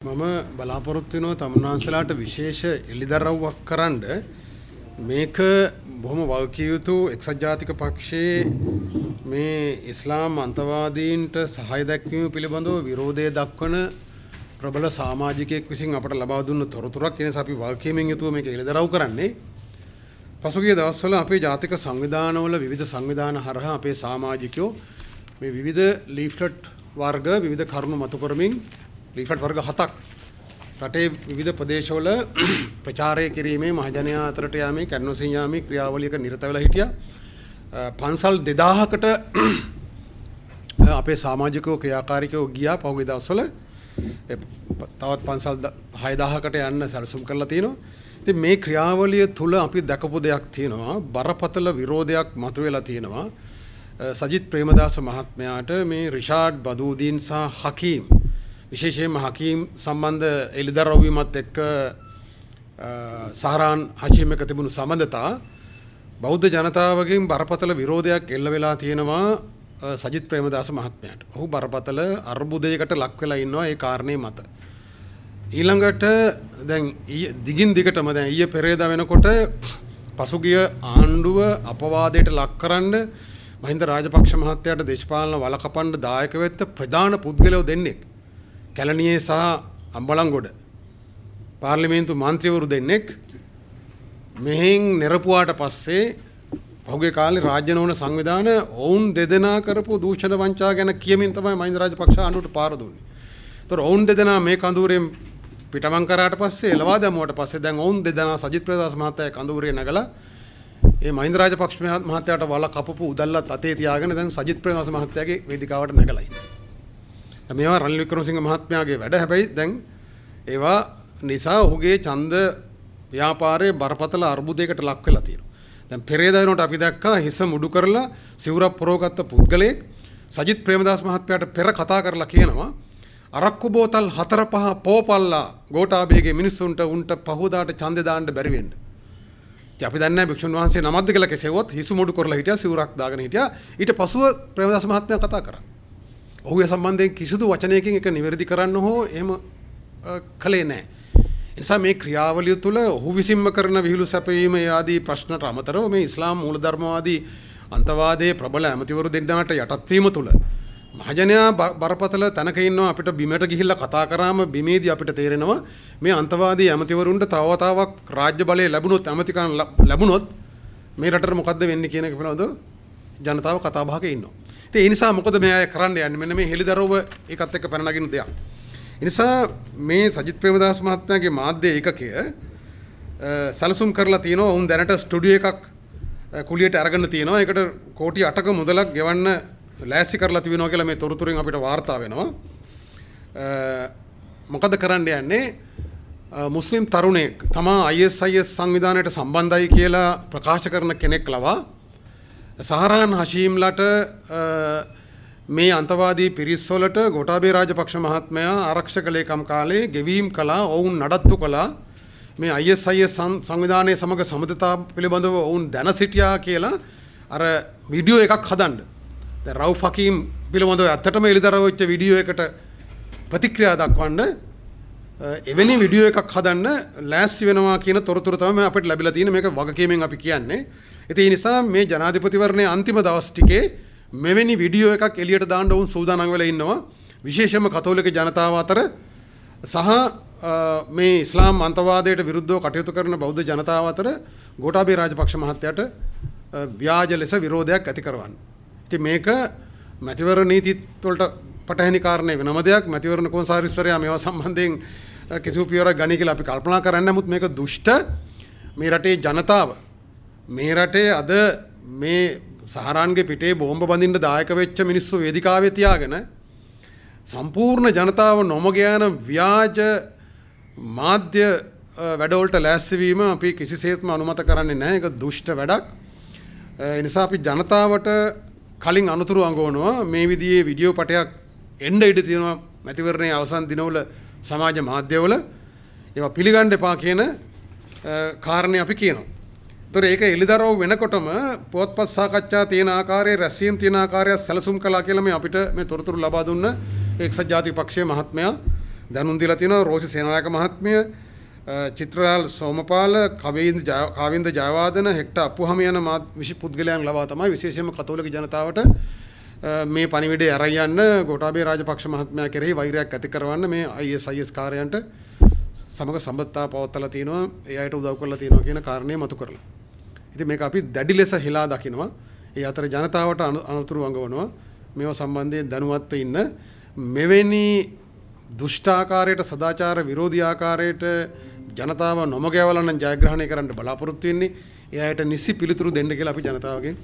මම බලාපොරොත්තු වෙනවා තමුන්නාන්සලාට විශේෂ එළිදරව්වක් කරන්න. මේක බොහොම වගකිය යුතු එක්සත් ජාතික පක්ෂයේ මේ ඉස්ලාම් අන්තවාදීන්ට සහාය දැක්වීම පිළිබඳව විරෝධය දක්වන ප්‍රබල සමාජිකයෙක් විසින් අපට ලබා දුන්න තොරතුරක්. ඒ නිසා අපි වගකීමෙන් යුතුව මේක එළිදරව් කරන්නේ. පසුගිය දවස්වල අපේ ජාතික සංවිධානවල විවිධ සංවිධාන හරහා අපේ සමාජිකයෝ මේ විවිධ ලීෆ්ලට් වර්ග විවිධ කරුණු මතු කරමින් ලීෆ්ලට් වර්ග 7ක් රටේ විවිධ ප්‍රදේශවල ප්‍රචාරය කිරීමේ මහජනයා අතරට යාමේ කැන්වසින් යාමේ ක්‍රියාවලියක නිරත වෙලා හිටියා. පන්සල් 2000කට අපේ සමාජිකයෝ ක්‍රියාකාරිකයෝ ගියා පහුගිය දවස්වල. තවත් පන්සල් 6000කට යන්න සැලසුම් කරලා තියෙනවා. ඉතින් මේ ක්‍රියාවලිය තුල අපි දැකපු දෙයක් තියෙනවා, බරපතල විරෝධයක් මතුවෙලා තියෙනවා. සජිත් ප්‍රේමදාස මහත්මයාට මේ රිෂාඩ් බදූදීන් සහ හකීම්, විශේෂයෙන්ම හකීම් සම්බන්ධ එළිදරව් වීමත් එක්ක සහරාන් හෂීම් එක තිබුණු සම්බන්ධතා බෞද්ධ ජනතාවගෙන් බරපතල විරෝධයක් එල්ල වෙලා තියෙනවා සජිත් ප්‍රේමදාස මහත්මයාට. ඔහු බරපතල අර්බුදයකට ලක් වෙලා ඉන්නවා ඒ කාරණේ මත. ඊළඟට දැන් දිගින් දිගටම දැන් ඊයේ පෙරේදා වෙනකොට පසුගිය ආණ්ඩුව අපවාදයට ලක් කරන්න මහින්ද රාජපක්ෂ මහත්තයාට දේශපාලන වල කපන්න දායක වෙච්ච ප්‍රධාන පුද්ගලයෝ දෙන්නෙක්, කැලණියේ සහ අම්බලන්ගොඩ පාර්ලිමේන්තු මන්ත්‍රීවරු දෙන්නෙක් මෙහෙන් නිරපුවාට පස්සේ පහුගිය කාලේ රාජ්‍ය නොවන සංවිධාන ඔවුන් දෙදෙනා කරපු දූෂණ වංචා ගැන කියමින් තමයි මහින්ද රාජපක්ෂ ආණ්ඩුවට පාර දුන්නේ. ඒතර ඔවුන් දෙදෙනා මේ කඳවුරෙන් පිටමං කරාට පස්සේ එළවා දැමුවට පස්සේ දැන් ඔවුන් දෙදෙනා සජිත් ප්‍රේමදාස මහත්තයා කඳවුරේ නැගලා ඒ මහින්ද රාජපක්ෂ මහත්තයාට වල කපපු උදල්ලත් අතේ තියාගෙන දැන් සජිත් ප්‍රේමදාස මහත්තයාගේ වේදිකාවට නැගලා ඉන්නවා. මේවා රනිල් වික්‍රමසිංහ මහත්මයාගේ වැඩ. හැබැයි දැන් ඒවා නිසා ඔහුගේ ඡන්ද ව්‍යාපාරයේ බරපතල අර්බුදයකට ලක් වෙලා තියෙනවා. දැන් පෙරේදා වෙනකොට අපි දැක්කා හිස මුඩු කරලා සිවුරක් පොරවගත්ත පුද්ගලයෙක් සජිත් ප්‍රේමදාස මහත්මයාට පෙර කතා කරලා කියනවා අරක්කු බෝතල් 4-5 පෝපල්ලා ගෝඨාභයගේ මිනිස්සුන්ට උන්ට පහුදාට ඡන්දේ දාන්න බැරි වෙන්න. ඉතින් අපි දන්නේ නැහැ භික්ෂුන් වහන්සේ නමක්ද කියලා කෙසේවත් හිස මුඩු කරලා හිටියා, සිවුරක් දාගෙන හිටියා. ඊට පසුව ප්‍රේමදාස මහත්මයා කතා කරා. ඔහු ඒ සම්බන්ධයෙන් කිසිදු වචනයකින් ඒක නිවැරදි කරන්න හෝ එහෙම කළේ නැහැ. ඒ නිසා මේ ක්‍රියාවලිය තුළ ඔහු විසින්ම කරන විහිළු සැපවීම ඒ ආදී ප්‍රශ්නට අමතරව මේ ඉස්ලාම් මූලධර්මවාදී අන්තවාදයේ ප්‍රබල ඇමතිවරු දෙන්නාට යටත් වීම තුළ මහජනයා බරපතල තැනක ඉන්නවා. අපිට බිමට ගිහිල්ලා කතා කරාම බිමේදී අපිට තේරෙනවා මේ අන්තවාදී ඇමතිවරුන්ට තව වතාවක් රාජ්‍ය බලය ලැබුණොත්, ඇමතිකම් ලැබුණොත් මේ රටට මොකද්ද වෙන්නේ කියන එක පිළිබඳව ජනතාව කතා බහක ඉන්නවා. ඉතින් ඒ නිසා මොකද මේ අය කරන්න යන්නේ? මෙන්න මේ හෙළිදරව්ව ඒකත් එක්ක පැන නගින දෙයක්. ඒ නිසා මේ සජිත් ප්‍රේමදාස මහත්මයාගේ මාධ්‍ය ඒකකය සැලසුම් කරලා තියෙනවා. ඔවුන් දැනට ස්ටුඩියෝ එකක් කුලියට අරගෙන තියෙනවා. ඒකට කෝටි 8ක මුදලක් ගෙවන්න ලෑස්ති කරලා තිබෙනවා කියලා මේ තොරතුරෙන් අපිට වාර්තා වෙනවා. මොකද කරන්න යන්නේ? මුස්ලිම් තරුණයෙක් තමා ISIS සංවිධානයට සම්බන්ධයි කියලා ප්‍රකාශ කරන කෙනෙක් ලවා සහරාන් හෂීම්ලට මේ අන්තවාදී පිරිස් වලට ගෝඨාභය රාජපක්ෂ මහත්මයා ආරක්ෂක ලේකම් කාලේ ගෙවීම් කළා, ඔවුන් නඩත්තු කළා, මේ ISIS සංවිධානයේ සමග සබඳතා පිළිබඳව ඔවුන් දැන සිටියා කියලා අර වීඩියෝ එකක් හදන්න. දැන් රවුෆ් හකීම් පිළිබඳව ඇත්තටම එළිදරව් වෙච්ච වීඩියෝ එකට ප්‍රතික්‍රියා දක්වන්න එවැනි වීඩියෝ එකක් හදන්න ලෑස්ති වෙනවා කියන තොරතුරු තමයි අපිට ලැබිලා තියෙන්නේ. මේක වගකීමෙන් අපි කියන්නේ. ඉතින් ඒ නිසා මේ ජනාධිපතිවරණයේ අන්තිම දවස් ටිකේ මෙවැනි වීඩියෝ එකක් එළියට දාන්න ඔවුන් සූදානම් වෙලා ඉන්නවා. විශේෂයෙන්ම කතෝලික ජනතාව අතර සහ මේ ඉස්ලාම් අන්තවාදයට විරුද්ධව කටයුතු කරන බෞද්ධ ජනතාව අතර ගෝඨාභය රාජපක්ෂ මහත්තයාට ව්‍යාජ ලෙස විරෝධයක් ඇති කරවන්න. ඉතින් මේක මැතිවරණ නීතිත් වලට පටහැනි කාරණේ වෙනම දෙයක්. මැතිවරණ කොමසාරිස්වරයා මේවා සම්බන්ධයෙන් කිසිදු පියවරක් ගනී කියලා අපි කල්පනා කරන්නේ. නමුත් මේක දුෂ්ට මේ රටේ ජනතාව, මේ රටේ අද මේ සහරාන්ගේ පිටේ බෝම්බ බඳින්න දායක වෙච්ච මිනිස්සු වේදිකාවේ තියාගෙන සම්පූර්ණ ජනතාව නොමග යන ව්‍යාජ මාධ්‍ය වැඩවලට ලෑස්ති වීම අපි කිසිසේත්ම අනුමත කරන්නේ නැහැ. ඒක දුෂ්ට වැඩක්. ඒ නිසා අපි ජනතාවට කලින් අනුතුරු අඟවනවා මේ විදිහේ වීඩියෝ පටයක් එන්න ඉඩ තියෙනවා මැතිවරණයේ අවසන් දිනවල සමාජ මාධ්‍යවල. ඒවා පිළිගන්න එපා කියන කාරණේ අපි කියනවා. ඒතර ඒක එළිදරව් වෙනකොටම පුවත්පත් සාකච්ඡා තියෙන ආකාරයේ රැස්වීම් තියෙන ආකාරය සැලසුම් කළා කියලා මේ අපිට මේ තොරතුරු ලබා දුන්න එක්සත් ජාතික පක්ෂයේ මහත්මයා දැනුම් දීලා තියෙනවා. රෝසි සේනානායක මහත්මිය, චිත්‍රලාල් සෝමපාල, කාවින්ද ජයවර්ධන, හෙක්ටර් අප්පුහාමි යන විශ් පුද්ගලයන් ලවා තමයි විශේෂයෙන්ම කතෝලික ජනතාවට මේ පණිවිඩය අරන් යන්න ගෝඨාභය රාජපක්ෂ මහත්මයා කෙරෙහි වෛරයක් ඇති කරවන්න මේ ISIS කාර්යයන්ට සමග සම්බන්ධතා පවත්වලා තිනවා, ඒ අයට උදව් කරලා තිනවා කියන කාරණය මතු කරලා. ඉතින් මේක අපි දැඩි ලෙස හෙලා දකිනවා. ඒ අතර ජනතාවට අනතුරු අඟවනවා. මේවා සම්බන්ධයෙන් දැනුවත්ව ඉන්න. මෙවැනි දුෂ්ටාකාරයට, සදාචාර විරෝධී ආකාරයට ජනතාව නොමග යවලා නම් ජයග්‍රහණය කරන්න බලාපොරොත්තු වෙන්නේ. ඒ අයට නිසි පිළිතුරු දෙන්න කියලා අපි ජනතාවගෙන්